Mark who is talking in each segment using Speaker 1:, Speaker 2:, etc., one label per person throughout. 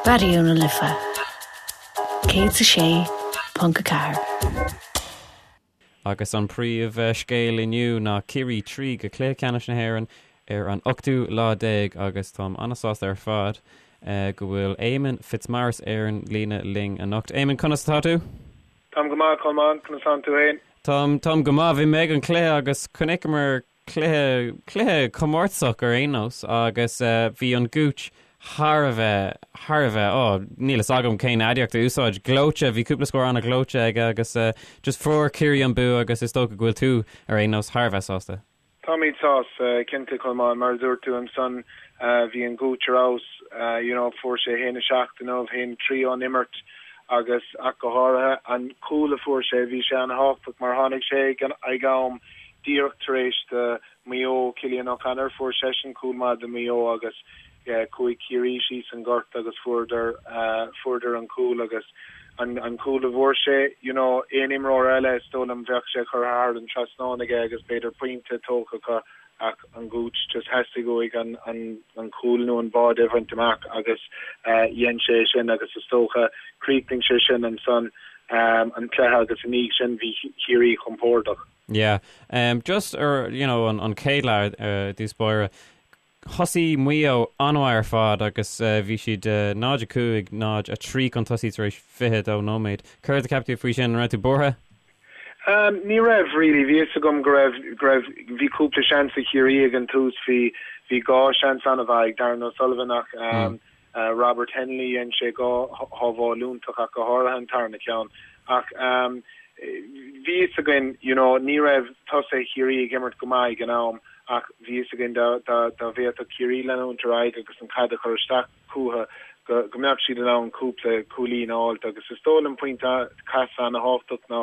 Speaker 1: Raidió na Life 106.4.
Speaker 2: Agus an príomh scéal inniu ná Ciarraí 3 go Cluiche Ceannais na hÉireann ar an ochtú lá déag agus táim an-sásta ar fad go bhfuil Éamonn Fitzmaurice ar an líne linn anocht. Éamonn, conas atá tú?
Speaker 3: Táim go maith, Colmán, conas tánn tú fhéin?
Speaker 2: Táim, táim go maith. Bhí mé ag an cluiche agus chonaiceamar cluiche, cluiche comórtasach ar aon nós agus bhí an Gooch thar a bheith, thar a bheith, oh, níl fhios agam cén aidiacht a úsáid, gleoite, bhí cúpla scór an-ghleoite aige agus just fuair Ciarraí an bua agus is dócha go bhfuil tú ar aon nós thar a bheith sásta.
Speaker 3: Táimid sásta, cinnte, Colmán, mar a dúirt tú ansan, bhí an Gooch ar fheabhas, you know, fuair sé 1-7 inniu, 1-3 ón imirt agus ach go háirithe an cúl a fuair sé, bhí sé an-thábhachtach mar tháinig sé ag am díreach tar éis do Mhaigh Eo, Cillian O'Connor, fuair seisean cúl maith do Mhaigh Eo agus chuaigh Ciarraí síos an gort agus fuaireadar, fuaireadar an cúl agus an, an cúl a bhfuair sé, you know, aon imreoir eile is dóigh liom bheadh sé curtha thar an trasnán aige agus b'fhéidir pointe tógtha acu ach an Gooch just theastaigh uaidh an, an, an cúl nó an báide a bhaint amach agus dhein sé sin agus is dócha chríochnaigh sé sin ansan an cluiche agus i ndiaidh sin bhí Ciarraí compordach.
Speaker 2: Yeah. Just ar, you know, an, an chéad leath i dtús báire, thosaigh Maigh Eo an-mhaith ar fad agus bhí siad 0-5, 0-3 chun tosaigh tar éis 22 nóiméad. Céard a cheap tú faoi sin? An raibh tú buartha?
Speaker 3: Ní raibh, really. Bhí fhios agam go raibh, go raibh, bhí cúpla seans ag Ciarraí ag an tús. Bhí, bhí dhá seans an-mhaith ag Darran O'Sullivan ach Robert Hennelly, dhein sé dhá shábháil iontach ach go háirithe an tarna ceann. Ach bhí fhios againn, you know, ní raibh tosaithe Chiarraí ag imirt go maith ag an am ach bhí fhios againn dá dá bhféadfadh Ciarraí leanúint ar aghaidh agus an chaid a chur isteach chucu go go mbeadh siad in ann cúpla cúilín a fháilt agus is dóigh liom pointe casadh ana-thábhachtach ná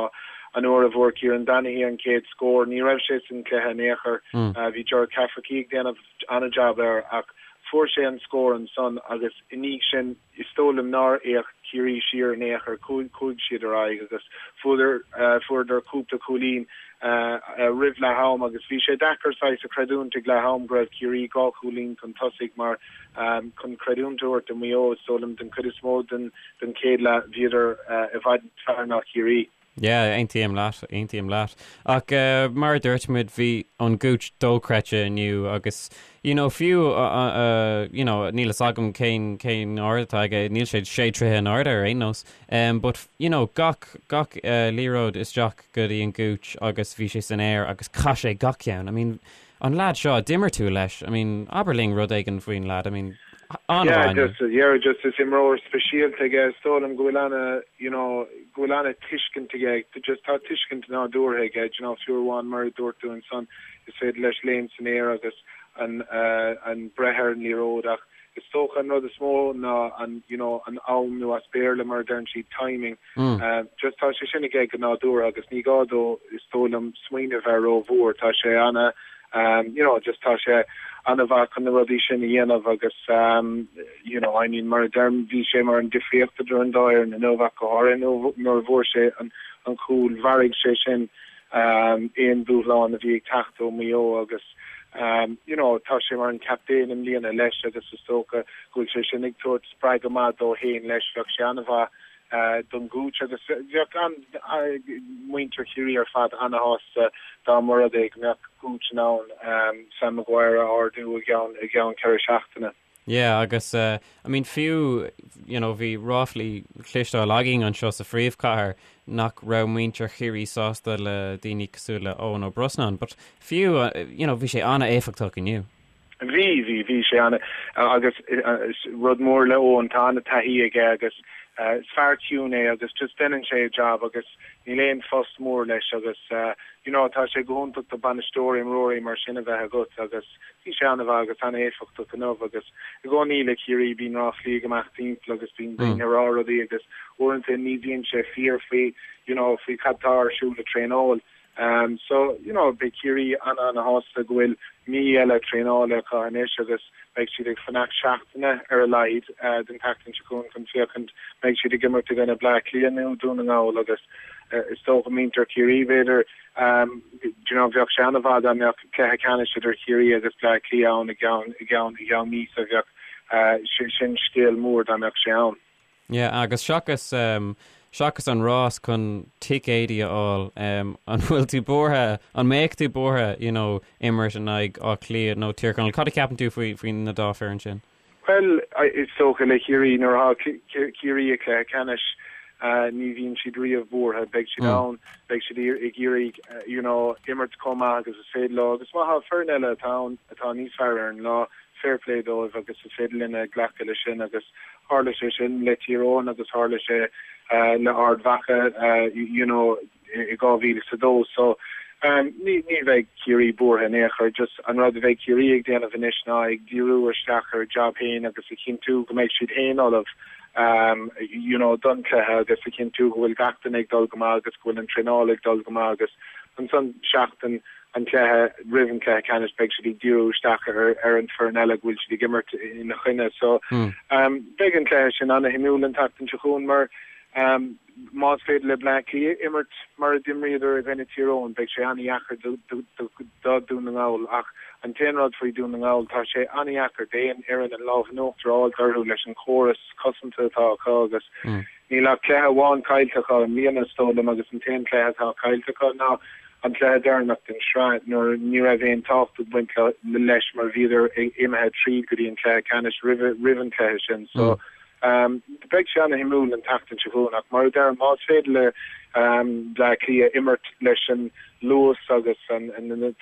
Speaker 3: an uair a bhfuair Kieran Donaghy an chéad scór. Ní raibh sé san cluiche in aon chor. Bhí Gerard Cafferkey ag déanamh an-jab air ach fuair sé an scór ansan agus i ndiaidh sin is dóigh liom nár fhéach Ciarraí siar in aon chor, chuaigh siad ar aghaidh agus fuaireadar fuaireadar cúpla cúilín roimh leath am agus bhí sé deacair saghas a chreidiúint ag leath am go raibh Ciarraí dhá chúilín chun tosaigh mar chun creidiúint a thabhairt do Mhaigh Eo is dóigh liom den chuid is mó den den chéad leath bhíodar i bhfad níos fearr ná Ciarraí.
Speaker 2: Yeah, aontaím leat, aontaím leat. Ach mar a dúirt muid, bhí an Gooch dochreidte inniu agus, you know, fiú, you know, níl fhios agam cén, cén ard atá aige, níl sé sé troithe in airde ar aon nós, but, you know, gach, gach liathróid isteach go dtí an Gooch agus bhí sé san aer agus chaith sé gach ceann. I mean, An leaid seo, d'imir tú leis, I mean, abair linn rud éigin faoin leaid, I mean,
Speaker 3: an-mhaith inniu. Yeah, just, yeah, just is imreoir speisialta aige, is dóigh liom go bhfuil ana, you know, go bhfuil ana tuiscint aige, just tá tuiscint nádúrtha aige, you know, fiú amháin mar a dúirt tú ansan, is féidir leis léim san aer agus an, an breith ar an liathróid ach is dócha an rud is mó ná an, you know, an am nó as Béarla mar a deireann siad timing, Just tá sé sin aige go nádúrtha agus ní gá dó is dóigh liom smaoineamh air rómhór. Tá sé ana you know just tá sé ana-mhaith chun na rudaí sin a dhéanamh agus you know I mean mar a deirim bhí sé mar an difríocht idir an dá fhoireann inniu ach go háirithe nuair a bhfuair sé an an cúl mharaigh sé sin aon dúshlán a bhí ag teacht ó Mhaigh Eo agus you know tá sé mar an captaen i mbliana leis agus is dócha go bhfuil sé sin ag tabhairt spreagadh maith dó féin leis. Bheadh sé ana-mhaith don Gooch agus bheadh an muintir Chiarraí ar fad ana-shásta dá mba rud é go mbeadh Gooch in ann Sam Maguire a ardú i gceann i gceann 4 seachtaine.
Speaker 2: Yeah agus I mean fiú you know bhí ráflaí cloisteáil againn anseo sa phríomhchathair nach raibh muintir Chiarraí sásta le daoine cosúil le Eoin Ó Brosnáin but fiú you know bhí sé an-éifeachtach inniu.
Speaker 3: Bhí, bhí, bhí sé ana, agus rud mór le Eoin, tá ana taithí aige agus is fear ciúin é agus just deineann sé a job agus níl aon fuss mór leis agus you know tá sé go hiontach do bainisteoir imreoirí mar sin a bheith agat agus bhí sé ana mhaith agus ana éifeachtach inniu agus i gcónaí le Ciarraí bíonn ráflaí ag imeacht timpeall agus bíonn daoine ag rá rudaí agus uaireanta ní bhíonn sé fíor faoi you know faoi cad tá ar siúl ag traenáil. So, you know, beidh Ciarraí ana-ana-shásta go bhfuil mí eile traenála acu anois agus beidh siad ag fanacht seachtaine ar a laghad den tseachtain seo chugainn chun féachaint mbeidh siad ag imirt i gcoinne Bleá Cliath nó Dún na nGall agus is dócha muintir Chiarraí b'fhéidir, do you know, bheadh sé ana-mhaith dá mbeadh cluiche ceannais idir Chiarraí agus Bleá Cliath ann i gceann, i gceann, i gceann míosa. Bheadh. Sin scéal mór dá mbeadh sé ann.
Speaker 2: Yeah, agus seachas, seachas an rás chun ticéidí a fháil, an bhfuil tú buartha, an mbeadh tú buartha, you know, imirt in aghaidh Áth Cliath nó Tír Chonaill? Cad a cheapann tú faoi, faoi na dá foireann sin?
Speaker 3: Bhuel, is dócha le Ciarraí, nuair atá Ciarraí i gcluiche ceannais, ní bhíonn siad riamh buartha. Beidh siad ann, beidh siad ag iarraidh, you know, imirt chomh maith agus is féidir leo. Agus má tá foireann eile atá ann atá níos fearr ar an lá, fair play dóibh agus is féidir linne glacadh leis sin agus tharla sé sin le Tír Eoghain agus tharla sé le Ard Mhacha you know i 2002 so ní ní bheidh Ciarraí buartha in aon chor just an rud a bheidh Ciarraí ag déanamh anois ná ag díriú isteach ar a job féin agus a chinntiú go mbeidh siad féin ullamh you know don chluiche agus a chinntiú go bhfuil gach duine ag dul go maith agus go bhfuil an traenáil ag dul go maith agus ansan seachtain an cluiche, roimh an cluiche ceannais, beidh siad ag díriú isteach ar an foireann eile go bhfuil siad ag imirt ina choinne. So beidh an cluiche sin ana-shuimiúil an tseachtain seo chugainn mar más féidir le Bleá Cliath imirt mar a d'imríodar i gcoinne Tír Eoghain, beidh sé ana-dheacair do Dhún na nGall. Ach an t-aon rud faoi Dhún na nGall, tá sé ana-dheacair d'aon fhoireann an lámh in uachtar a fháilt orthu leis an chóras cosanta atá acu agus níl ach cluiche amháin caillte acu i mbliana is dóigh liom agus an t-aon cluiche atá caillte acu ná an cluiche deireanach den sraith nuair ní raibh aon tábhacht ag baint leis mar bhíodar imithe tríd go dtí an cluiche ceannais roimh an cluiche sin. So beidh sé ana-shuimiúil an tseachtain seo chugainn ach mar a deirim más féidir le Bleá Cliath imirt leis an luas agus na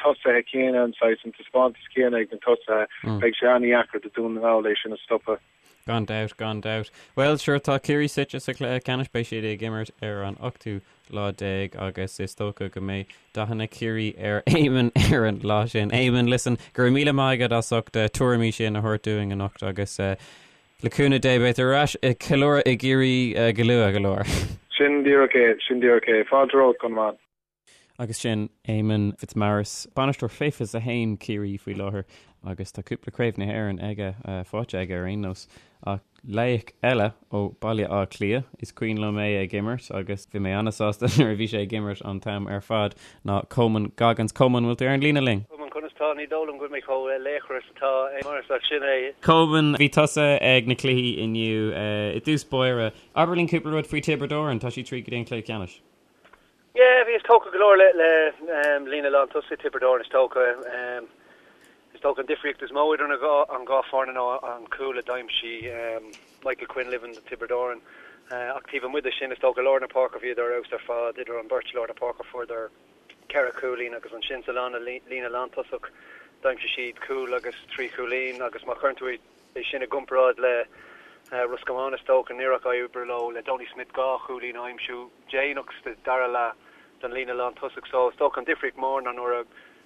Speaker 3: tosaithe céanna, an saghas, an taispeántas céanna ag na tosaithe, beidh sé ana-dheacair do Dún na nGall é sin a stopadh.
Speaker 2: Gan dabht, gan dabht. Bhuel, sure, tá Ciarraí suite sa chluiche ceannais, beidh siad ag imirt ar an ochtú lá déag agus is dócha go mbeidh dathanna Chiarraí ar Éamonn ar an lá sin. Éamonn, listen, go raibh míle maith agat as ucht na tuairimí sin a thabhairt dúinn anocht agus le cúnamh Dé beidh tú ar ais ag ceiliúradh i gCiarraí go luath go leor.
Speaker 3: Sin díreach é, sin díreach é. Fáilte romhat, Colmán.
Speaker 2: Agus sin Éamonn Fitzmaurice, bainisteoir fé 21 Ciarraí faoi láthair agus tá cúpla Craobh na hÉireann aige, faighte aige ar aon nós. Ach laoch eile ó Baile Átha Cliath, is cuimhin liom é ag imirt agus bhí mé an-sásta nuair a bhí sé ag imirt an t-am ar fad, ná Coman Goggins. Coman, bhfuil tú ar an líne linn?
Speaker 4: Coman, conas tá? Ní dóigh liom go bhfuil mé chomh laochra is atá Éamonn, ach sin é.
Speaker 2: Coman, bhí tusa ag na cluichí inniu. I dtús báire, abair linn cúpla rud faoi Tiobraid Árann, tá siad tríd go dtí an cluiche ceannais.
Speaker 4: Yeah, bhíos tógtha go leor le líne lán tosaigh Tiobraid Árann is dócha. Is dócha an difríocht is mó idir an dhá foireann ná an cúl a d'aimsigh Michael Quinlivan do Tiobraid Árann. Ach taobh amuigh de sin, is dócha lár na páirce bhíodar ar fheabhas ar fad idir an beirt lár na páirce fuaireadar ceithre chúilín agus ansin sa líne lántosach d'aimsigh siad cúl agus trí chúilín agus má chuireann tú É sin i gcomparáid le Ros Comáin is dócha, níor éirigh leo le Donie Smith 2 chúilín a aimsiú déanach sa dara leath don líne lántosach so is dócha an difríocht mór ná nuair a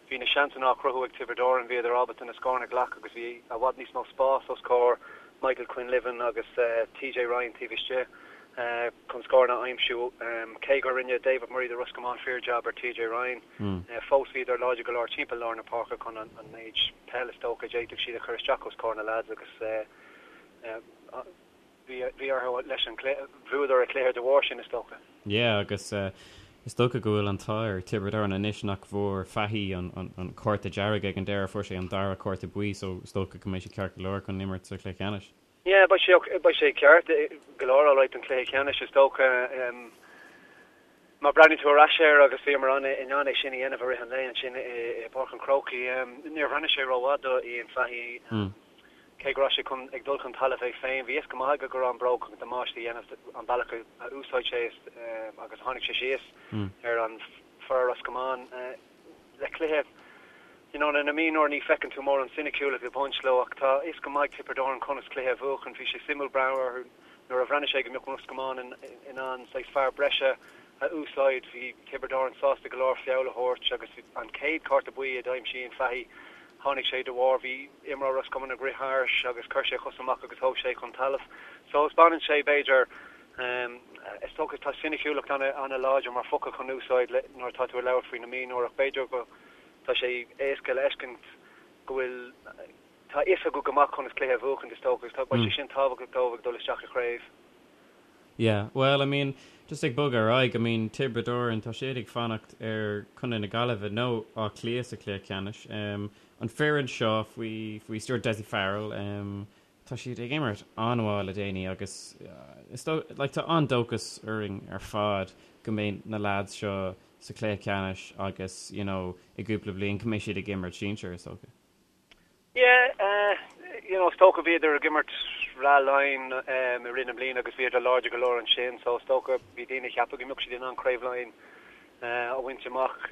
Speaker 4: bhí na seansanna á chruthú ag Tiobraid Árann bhíodar ábalta na scóranna a ghlacadh agus bhí i bhfad níos mó spás os comhair Michael Quinlivan agus TJ Ryan taobh istigh chun scóranna a aimsiú. Cé gur rinne David Murray do Ros Comáin fíor jab ar TJ Ryan fós bhíodar láidir go leor timpeall lár na páirce chun an méid peil is dócha a d'fhéadfadh siad a chur isteach os comhair na leaids agus bhí orthu leis an cluiche, bhuadar an cluiche de bharr sin is dócha.
Speaker 2: Yeah agus is dócha go bhfuil an t-ádh ar Tiobraid Árann anois nach bhfuair Fahy an cárta dearg ag an deireadh, fuair sé an dara cárta buí so is dócha go mbeidh sé ceart go leor chun imirt sa chluiche ceannais.
Speaker 4: Yeah, beidh sé, beidh sé ceart go leor alright don chluiche ceannais is dócha. Má breathnaíonn tú ar ais air agus bhíomar an in ann é sin a dhéanamh i rith an lae ansin i bPáirc an Chrócaigh, níor bhreathnaigh sé rómhaith do Ian Fahey. Cé go raibh sé chun ag dul chun talaimh é féin, bhí fhios go maith aige go raibh an bróg chun damáiste a dhéanamh an bealach a úsáid sé agus tháinig sé síos ar an fear Ros Comáin le cluiche you know, na mionúr ní feiceann tú mórán soiniciúlacht ag baint leo ach tá fhios go maith ag Tiobraid Árann conas cluiche a bhuachan. Bhí sé suimiúil breathnú orthu nuair a bhreathnaigh sé go mbeadh Ros Comáin in ann saghas fear breise a úsáid. Bhí Tiobraid Árann sásta go leor feall a thabhairt agus an chéad cárta buí a d'aimsigh Ian Fahey tháinig sé de bharr bhí imreoir Ros Comáin ag rith thairis agus chuir sé a chos amach agus thóg sé chun talaimh. So taispeánann sé b'fhéidir is dócha tá soiniciúlacht ana-láidir mar focal chun úsáid nuair atá tú ag labhairt faoi na mionúir ach b'fhéidir go Tá sé éasca le feiscint go bhfuil, tá a fhios acu go maith conas cluiche a bhuachaint is dócha agus tá, beidh sé sin tábhachtach dóibh ag dul isteach i chraobh.
Speaker 2: Yeah, well, I mean, just ag bogadh ar aghaidh, I mean, Tiobraid Árann, tá siad ag fanacht ar Contae na Gaillimhe nó Áth Cliath sa chluiche ceannais. an foireann seo faoi faoi stiúir Dessie Farrell tá siad ag imirt an-mhaith le déanaí agus is dóigh like tá an-dóchas orainn ar fad go mbeidh na lads seo sa chluiche ceannais agus you know i gcúpla bliain go mbeidh siad ag imirt sinsir is dócha.
Speaker 4: Yeah, you know, is dócha bhíodar ag imirt Sraith Laighean i rith na bliana agus bhíodar láidir go leor ansin so is dócha bhí daoine ag ceapadh go mbeadh siad in ann Craobh Laighean a bhaint amach.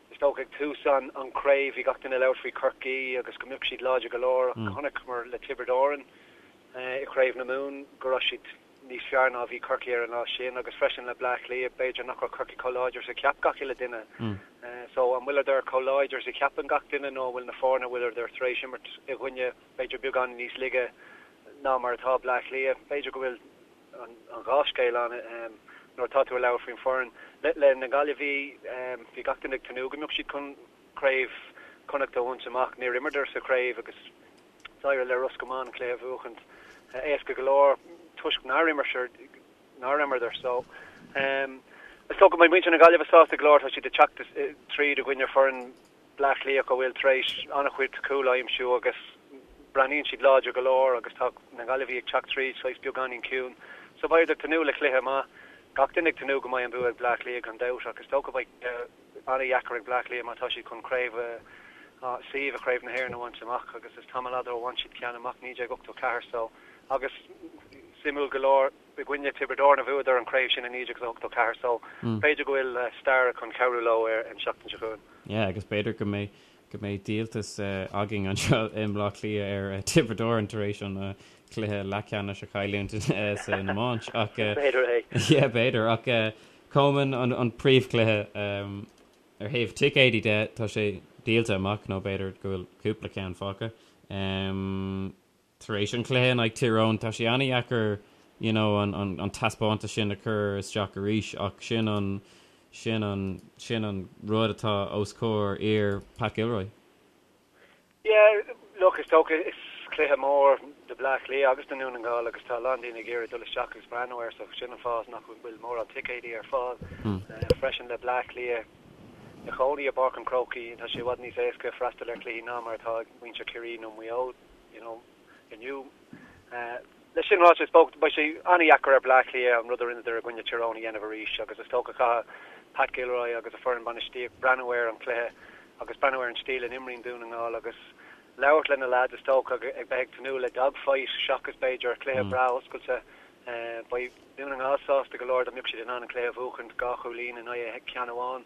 Speaker 4: Is dócha ag tús an an craobh bhí gach duine ag labhairt faoi Chorcaí agus go mbeadh siad láidir go leor ach chonaiceamar le Tiobraid Árann i gCraobh na Mumhan go raibh siad níos fearr ná a bhí Corcaigh ar an lá sin agus freisin le Bleá Cliath, b'fhéidir nach raibh Corcaigh chomh láidir is a cheap gach uile duine. So an bhfuileadar chomh láidir is a cheapann gach duine nó an bhfuil na foirne a bhfuileadar tar éis imirt i gcoinne b'fhéidir beagán níos laige ná mar atá Bleá Cliath? B'fhéidir go bhfuil an dhá scéal ann nuair atá tú ag labhairt faoin foireann. Le na Gaillimhigh, bhí gach duine ag tnúth go mbeadh siad chun Craobh Chonnacht a bhaint amach. Níor imreadar sa chraobh agus D'éirigh le Ros Comáin an cluiche a bhuachaint éasca go leor toisc nár nár imreadar so is dócha go mbeidh muintir na Gaillimhe sásta go leor. Tá siad ag teacht tríd i gcoinne foireann Bleá Cliath a bhfuil tar éis an-chuid cúl a aimsiú agus breathnaíonn siad láidir go leor agus tá na Gaillimhigh ag teacht tríd saghas beagáinín ciúin so beidh ag tnúth le cluiche maith. Gach duine ag tnúth go mbeidh an bua ag Bleá Cliath gan dabht ach is dócha beidh an-dheacair ag Bleá Cliath má tá siad chun craobh suíomh i Craobh na hÉireann a bhaint amach agus is tamall fhada ó bhain siad ceann amach, 1984 so agus suimiúil go leor i gcoinne Tiobraid Árann a bhuadar an chraobh sin i 1984 so b'fhéidir go bhfuil stair chun cabhrú leo ar an seachtain seo chugainn.
Speaker 2: Yeah agus b'fhéidir go mbeidh go mbeidh díoltas againn anseo i mBleá Cliath ar Tiobraid Árann tar éis an cluiche leathcheannais a chailliúint san iomáint ach
Speaker 4: B'fhéidir é.
Speaker 2: Yeah b'fhéidir ach Coman, an príomhchluiche ar thaobh ticéidí de, tá sé díolta amach nó b'fhéidir go bhfuil cúpla ceann fágtha. Tar éis an chluiche in aghaidh Tír Eoghain, tá sé an-dheacair you know an an taispeántas sin a chur isteach arís ach sin an sin an sin an rud atá os comhair fhir Pat Gilroy.
Speaker 4: Yeah, look, is dócha, is cluiche mór do Bleá Cliath agus do Dhún na nGall agus tá a lán daoine ag iarraidh dul isteach agus breathnú air so sin an fáth nach bhfuil mórán ticéidí ar fáil. Freisin le Bleá Cliath ina chónaí i bPáirc an Chrócaigh, tá sé i bhfad níos éasca freastal ar chluichí ná mar atá ag muintir Chiarraí nó Maigh Eo, you know, inniu. Leis sin ráite, is dócha, beidh sé an-dheacair ar Bleá Cliath an rud a rinneadar i gcoinne Tír Eoghain a dhéanamh arís agus is dócha caithfidh Pat Gilroy agus a foireann bainistíocht breathnú ar an chluiche agus breathnú ar an stíl a n-imríonn Dún na nGall agus labhairt le na leaids is dócha ag bheith ag tnúth le dogfight seachas b'fhéidir cluiche breá oscailte. Beidh Dún na nGall sásta go leor dá mbeadh siad in ann an cluiche a bhuachaint dhá chúilín in aghaidh ceann amháin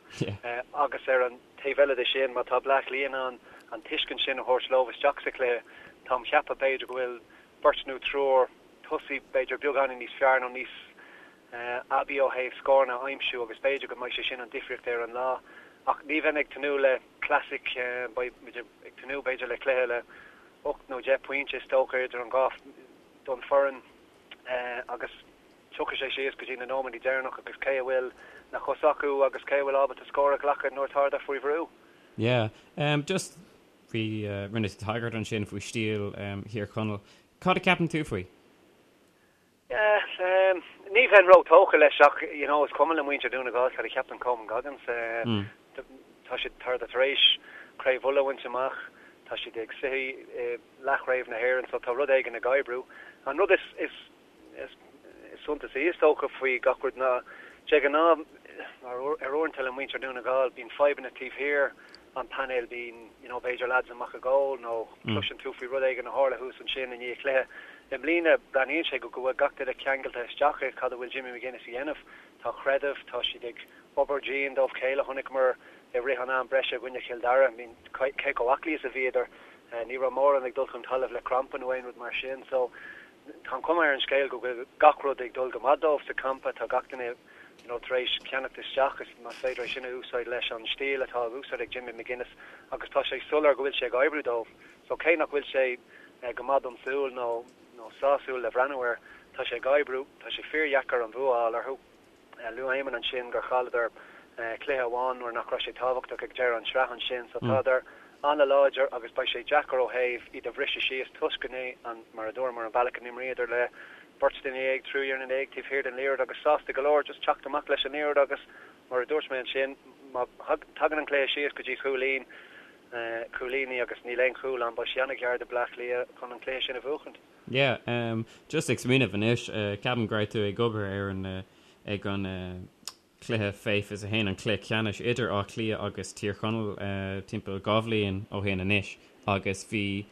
Speaker 4: agus ar an taobh eile de sin má tá Bleá Cliath in ann an tuiscint sin a thabhairt leo isteach sa chluiche táim cheapadh b'fhéidir go bhfuil beirt nó triúr tosaí b'fhéidir beagáinín níos fearr nó níos aibí ó thaobh scóranna a aimsiú agus b'fhéidir go mbeidh sé sin an difríocht ar an lá. Ach ní bheinn ag tnúth le classic, beidh muid ag tnúth b'fhéidir le cluiche le 8 nó 10 pointe is dócha idir an dhá don foireann agus tiocfaidh sé síos go dtí na nóiméadaí deireanach agus cé a bhfuil na cosa acu agus cé a bhfuil ábalta scór a ghlacadh nuair atá siad faoi bhrú.
Speaker 2: Yeah, just Bhí, rinne tú tagairt ansin faoi stíl Thír Chonaill. Cad a ceapann tú faoi?
Speaker 4: Yeah, ní bheinn ró-tógtha leis ach, you know, is cuma le muintir Dhún na nGall cad a cheapann Coman Goggins. Tá siad tar tar éis Craobh Uladh a bhaint amach, tá siad ag suí i leathchraobh na hÉireann so tá rud éigin ag oibriú. An rud is, is Is suntasaí is dócha faoi gach rud ná, de ghnáth, ar uaireanta le muintir Dhún na nGall, bíonn fadhbanna taobh thiar an painéil, bíonn, you know, b'fhéidir lads amach ag ól nó cloiseann tú faoi rud éigin a tharla thuas ansin i ndiaidh cluiche. I mbliana, breathnaíonn sé go bhfuil gach duine ceangailte isteach i cad a bhfuil Jimmy McGuinness a dhéanamh. Tá creideamh, tá siad ag obair dian dóibh chéile. Chonaiceamar i rith an am breise i gcoinne Chill Dara, I mean, cé chomh aclaí is a bhíodar. Ní raibh mórán ag dul chun talaimh le crampa nó aon rud mar sin. So, Tá an chuma ar an scéal go bhfuil gach rud ag dul go maith dóibh sa champa. Tá gach duine you know tar éis ceannacht isteach, is más féidir é sin a úsáid leis an stíl atá á úsáid ag Jimmy McGuinness agus tá sé soiléir go bhfuil sé ag oibriú dóibh. So cé nach bhfuil sé go maith don tsúil nó nó sásúil le bhreathnú air, tá sé ag oibriú. Tá sé fíordheacair an bhua a fháil orthu. Luaigh Éamonn ansin gur chailleadar cluiche amháin nuair nach raibh sé tábhachtach ag deireadh an sraith ansin so tádar an-láidir agus beidh sé deacair ó thaobh iad a bhriseadh síos toisc go n-é mar a dúramar an bealach a n-imríodar le beirt duine dhéag, triúr duine dhéag taobh thiar den liathróid agus sásta go leor just teacht amach leis an liathróid agus mar a dúirt mé ansin má thagann an cluiche síos go dtí chúilín. Cúilíní agus níl aon chúl ann, beidh sé an-ghearr do Bleá Cliath chun an cluiche sin a bhuachaint.
Speaker 2: Yeah, just ag smaoineamh anois, ceapaim go raibh tú ag obair ar an, ag an cluiche fé 21, an cluiche ceannais idir Áth Cliath agus Tír Chonaill timpeall 2 bhliain ó shin anois agus bhí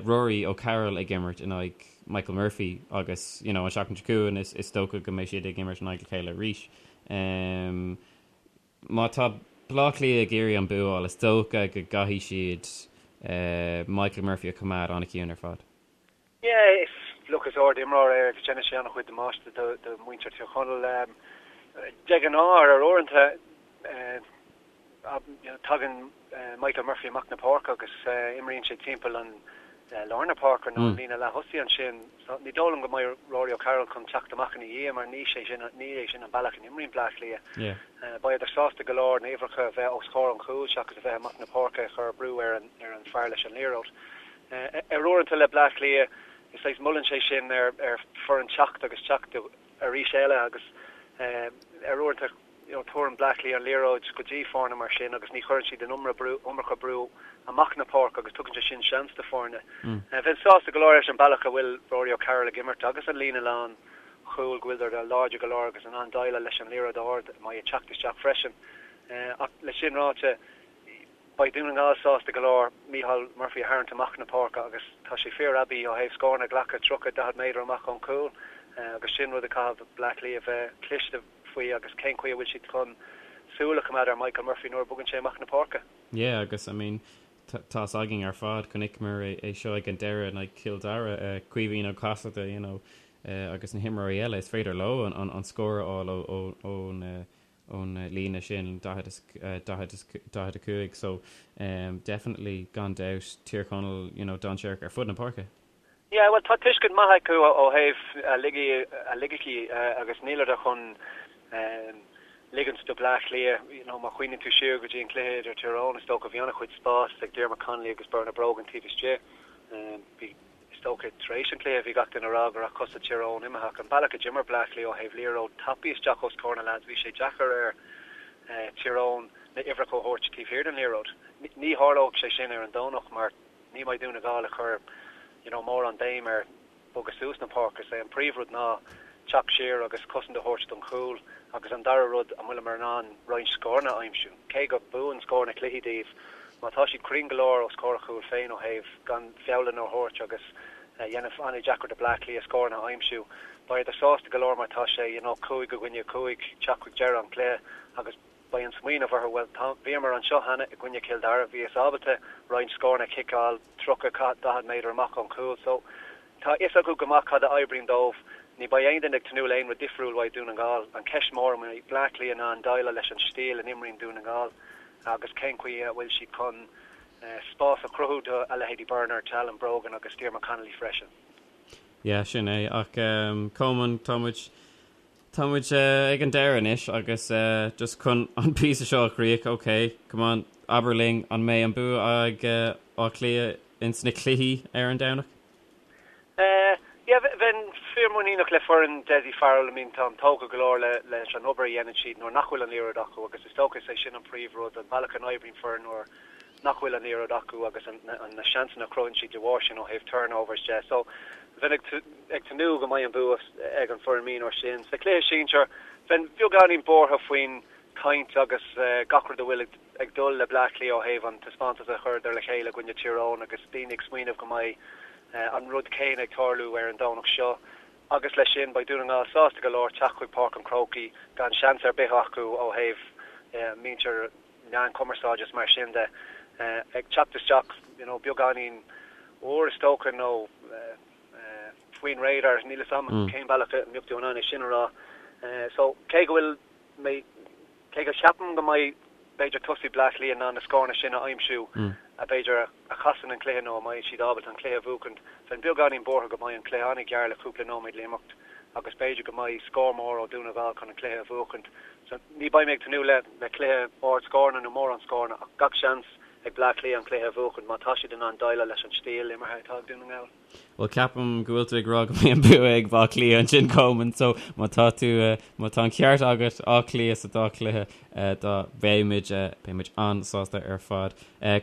Speaker 2: Rory O'Carroll ag imirt in aghaidh Michael Murphy agus you know an seachtain seo chugainn is, is dócha go mbeidh siad ag imirt in aghaidh a chéile arís. Má tá Bleá Cliath ag iarraidh an bua a fháil, is dócha go gcaithfidh siad Michael Murphy a choimeád an-chiúin ar fad.
Speaker 4: Yeah, is, look, is ard-imreoir é agus déanann sé an-chuid damáiste do do mhuintir Tír Chonaill. De ghnáth, ar uaireanta, Tagann Michael Murphy amach na páirce agus imríonn sé timpeall an lár na páirce nó an líne leath-thosaigh ansin. So ní dóigh liom go mbeidh Rory O'Carroll chun teacht amach ina dhiaidh mar ní sé sin ní é sin an bealach a n-imríonn Bleá Cliath. Beidh sásta go leor na uimhreacha a bheith os comhair an chúil seachas a bheith amach na páirce ag cur brú ar an ar an fear leis an liathróid. Ar uaireanta le Bleá Cliath is saghas molann sé sin ar ar foireann teacht agus teacht arís eile agus ar uaireanta you know tabharann Bleá Cliath an liathróid go dtí foirne mar sin agus ní chuireann siad an iomarca brú, iomarca brú amach na páirce agus tugann sé sin seans do foirne. Bheinn sásta go leor leis an bealach a bhfuil Rory O'Carroll ag imirt agus an líne lán chúil go bhfuil siad láidir go leor agus in ann déileáil leis an liathróid ard a mbeidh ag teacht isteach freisin. Ach le sin ráite, Beidh Dún na nGall sásta go leor Micheál Murphy a tharraingt amach na páirce agus tá sé fíor-aibí ó thaobh scóranna a ghlacadh 30, 40 méadar amach ón chúl agus sin rud a chaithfidh Bleá Cliath a bheith cliste faoi agus cén chaoi a bhfuil siad chun súil a choimeád ar Michael Murphy nuair a bogann sé amach na páirce.
Speaker 2: Yeah agus I mean tá's againn ar fad, chonaiceamar é seo ag an deireadh in aghaidh Chill Dara, Caoimhín Ó Casaide you know agus na himreoirí eile, is féidir leo an scór a fháil ón ón líne sin, 45 so definitely gan dabht Tír Chonaill you know dainséarach ar fud na páirce.
Speaker 4: Yeah bhuel tá tuiscint maith acu ó thaobh a loighicí agus níleadar chun ligint do Bleá Cliath you know má chuimhníonn tú siar go dtí an cluiche idir Tír Eoghain is dócha bhí an-chuid spás ag Diarmuid Connolly agus Bernard Brogan taobh istigh bhí Is dócha, tar éis an chluiche, bhí gach duine ag rá go raibh cosa Tír Eoghain imithe ach an bealach a d'imir Bleá Cliath ó thaobh liathróid tapaidh isteach os comhair na leaids, bhí sé deacair ar Tír Eoghain na uimhreacha a thabhairt taobh thiar den liathróid. Ní tharlóidh sé sin ar an Domhnach mar ní mbeidh Dún na nGall ag cur you know mórán béim ar bogadh suas na páirce. Is é an príomhrud ná teacht siar agus cosaint a thabhairt don chúl agus an dara rud, an bhfuileamar in ann roinnt scóranna a aimsiú? Cé go buann scóranna cluichí daoibh, má tá siad cruinn go leor os comhair a chúil féin ó thaobh gan feallanna a thabhairt agus a dhéanamh an-deacair do Bleá Cliath scóranna a aimsiú, beidh siad sásta go leor mar tá sé you know 5 i gcoinne 5 teacht chuig deireadh an chluiche agus beidh an smaoineamh orthu, bhuel tá, bhíomar anseo cheana i gcoinne Chill Dara, bhíos ábalta roinnt scóranna a chiceáil 30, 40 méadar amach ón chúl so tá fhios acu go maith cad a oibríonn dóibh. Ní beidh aon duine ag tnúth le aon rud difriúil uaidh Dún na nGall. An cheist mór an mbeidh Bleá Cliath in ann déileáil leis an stíl a n-imríonn Dún na nGall agus cén chaoi a bhfuil siad chun spás a chruthú do a leithéidí Bernard, Alan Brogan agus Diarmuid Connolly freisin.
Speaker 2: Yeah, sin é. Ach Coleman, tá muid Tá muid ag an deireadh anois agus just chun an píosa seo a chríoch, ok, come on, abair linn, an mbeidh an bua ag Áth Cliath ins na cluichí ar an Domhnach?
Speaker 4: Yeah, bheinn fíormhuiníneach le foireann Dessie Farrell, I mean táim tógtha go leor leis an obair a dhéanann siad nuair nach bhfuil an liathróid acu agus is dócha is é sin an príomhrud, an bealach a n-oibríonn foireann nuair nach bhfuil an liathróid acu agus na seansanna a chruthaíonn siad de bharr sin ó thaobh turnovers de. So bheinn ag tnúth go mbeidh an bua ag an foireann mionúir sin. Sa chluiche sinsir, bheinn beagáinín buartha faoin chaint agus gach rud a bhfuil ag dul le Bleá Cliath ó thaobh an taispeántas a chuireadar le chéile i gcoinne Tír Eoghain agus daoine ag smaoineamh go mbeidh an rud céanna ag tarlú ar an Domhnach seo. Agus leis sin, beidh Dún na nGall sásta go leor teacht chuig Páirc an Chrócaigh gan seans ar bith acu ó thaobh muintir meán cumarsáide is mar sin de ag teacht isteach you know beagáinín úr is dócha nó faoin radar, níl 'fhios a'm cén bealach a mbeadh tú in ann é sin a rá. So cé go bhfuil mé, cé go cheapaim go mbeidh b'fhéidir tosaí Bleá Cliath in ann na scóranna sin a aimsiú a b'fhéidir a chasann an cluiche nó a mbeidh siad ábalta an cluiche a bhuachaint, bheinn beagáinín buartha go mbeidh an cluiche an-ghearr le cúpla nóiméad le imeacht agus b'fhéidir go mbeidh scór mór ó Dún na nGall chun an cluiche a bhuachaint. So ní beidh mé ag tnúth le le cluiche ard scóranna nó mórán scóranna ach gach seans. ag Bleá Cliath an cluiche a bhuachan má tá siad in ann déileáil leis an stíl imeartha atá ag Dún na nGall.
Speaker 2: Bhuel, ceapaim go bhfuil tú ag rá go mbeidh an bua ag Baile Átha Cliath ansin, Coleman, so má tá tú, má tá an ceart agat, Áth Cliath sa dá chluiche, dá, beidh muid, beidh muid an-sásta ar fad.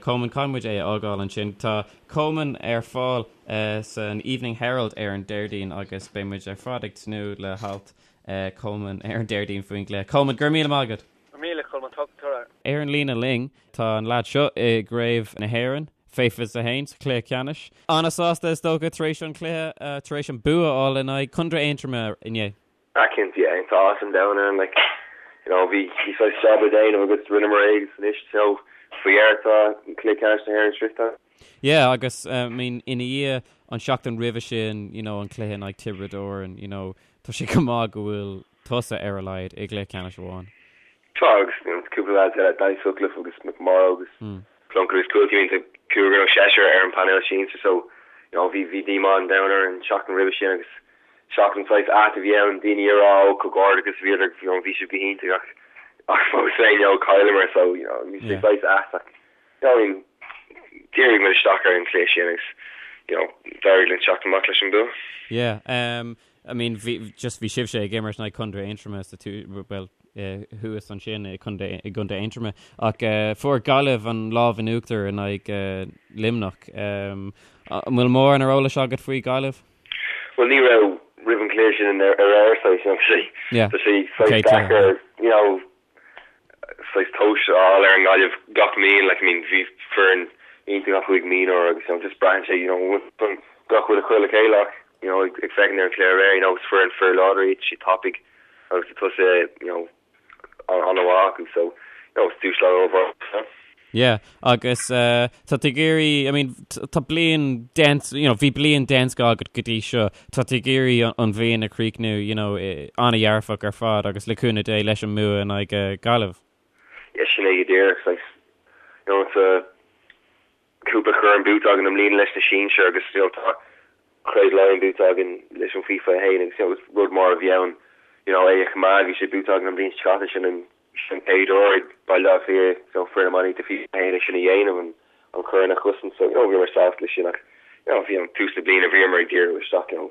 Speaker 2: Coleman, caithfidh muid é a fhágáil ansin. Tá Coleman ar fáil san Evening Herald ar an Déardaoin agus beidh muid ar fad ag tnúth le halt Coleman ar an Déardaoin faoin gcluiche. Coleman, go raibh míle maith agat!
Speaker 4: Go raibh míle, Colman, ta-ra.
Speaker 2: Ar an líne linn tá an leaid seo i gCraobh na hÉireann, fé 21, sa chluiche ceannais. An-sásta is dócha tar éis an chluiche, tar éis an bua a fháil in aghaidh Contae Aontroma inné.
Speaker 5: Ah cinnte, yeah, tá áthas an domhain orainn, like, you know, bhí, bhí saghas job le déanamh agus rinneamar é agus anois, you know, faoi dheireadh tá cluiche ceannais na hÉireann sroichte.
Speaker 2: Yeah, agus, I mean, ina dhiaidh an seachtain roimhe sin, you know, an cluiche in aghaidh Tiobraid Árann, you know, tá sé go maith go bhfuil tusa ar a laghad i gcluiche ceannais amháin.
Speaker 5: Tá, agus cúpla leaids eile, Danny Sutcliffe agus McMorrow agus Plunkett agus Cúiltí, I mean, tá cúigear nó seisear ar an bpainéal sinsir so, you know, bhí, bhí díomá an domhain orainn an tseachtain roimhe sin agus seachtain saghas ait a bhí ann, daoine ag rá ó comhghairdeachas bhíodar, you know, bhí sibh go hiontach ach, ach fós féin, you know, chailleamar so, you know, bhí sé saghas ait ach, you know, I mean, dhírigh muid isteach ar an chluiche sin agus, you know, d'éirigh linn teacht amach leis an bua.
Speaker 2: Yeah, um, I mean, bhí, just bhí sibhse ag imirt in aghaidh Contae Aontroma sa tú, well, eh, thuas ansin i Contae, i gContae Aontroma, ach eh, fuair Gaillimh an lámh in uachtar in aghaidh eh, Luimneach. Um, an bhfuil mórán ar eolas agat faoi Gaillimh?
Speaker 5: Well, ní raibh roimh an chluiche sin ar ar saghas, you know, tá sé,
Speaker 2: Yeah.
Speaker 5: tá sé saghas
Speaker 2: Okay,
Speaker 5: deacair, you know, saghas tomhas a fháil ar an nGaillimh gach bliain, like, I mean, bhí foireann iontach acu ag mionúir agus, you know, just braitheann sé, you know, gach rud a chur le chéile ach, you know, ag féachaint ar an chluiche aréir, you know, is foireann fíor láidir iad, siad tapaidh agus tá tosaithe, you know, an-mhaith acu, so, you know, is dúshlán ollmhór é.
Speaker 2: Yeah, agus tá tú ag iarraidh, I mean, tá bliain den, you know, bhí bliain den scoth agat go dtí seo, tá tú ag iarraidh an bhliain a chríochnú, you know, an-dhearfach ar fad agus le cúnamh Dé leis an mbua in aghaidh Gaillimh.
Speaker 5: Yeah, sin é go díreach, saghas, you know, tá cúpla corn buaite againn i mbliana leis na sinsir agus, you know, tá Craobh Laighean buaite againn leis an faoi 21 agus, you know, is rud mór a bhí ann, you know, é a choimeád, bhí sé buaite againn an bhliain seo caite, sin an Sin an chéad uair ag Baile Átha Cliath you know foireann iománaíochta faoi 21 é sin a dhéanamh, an an corn a chosaint so you know bhíomar sásta leis sin ach you know bhí an tús na bliana bhíomar ag díriú isteach you know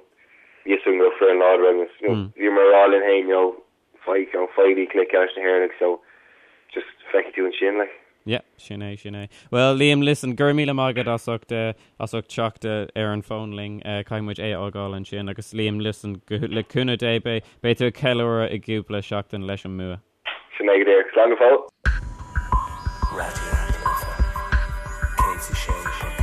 Speaker 5: bhí fhios againn go raibh foireann láidir againn agus you know bhíomar ag rá linn féin you know faigh you know faighigí cluiche ceannais na hÉireann agus you know just feicfidh tú ansin like.
Speaker 2: Yeah, sin é, sin é. Well, Liam, listen, go raibh míle maith agat as ucht, as ucht teacht ar an bhfón linn. Caithfidh muid é a fhágáil ansin. Agus Liam, listen, go, le cúnamh Dé, beidh, beidh tú ag ceiliúradh i gcúpla seachtain leis an mbua.
Speaker 5: Sin é go díreach. Slán go fóill.
Speaker 6: Raidió na Life 106.4.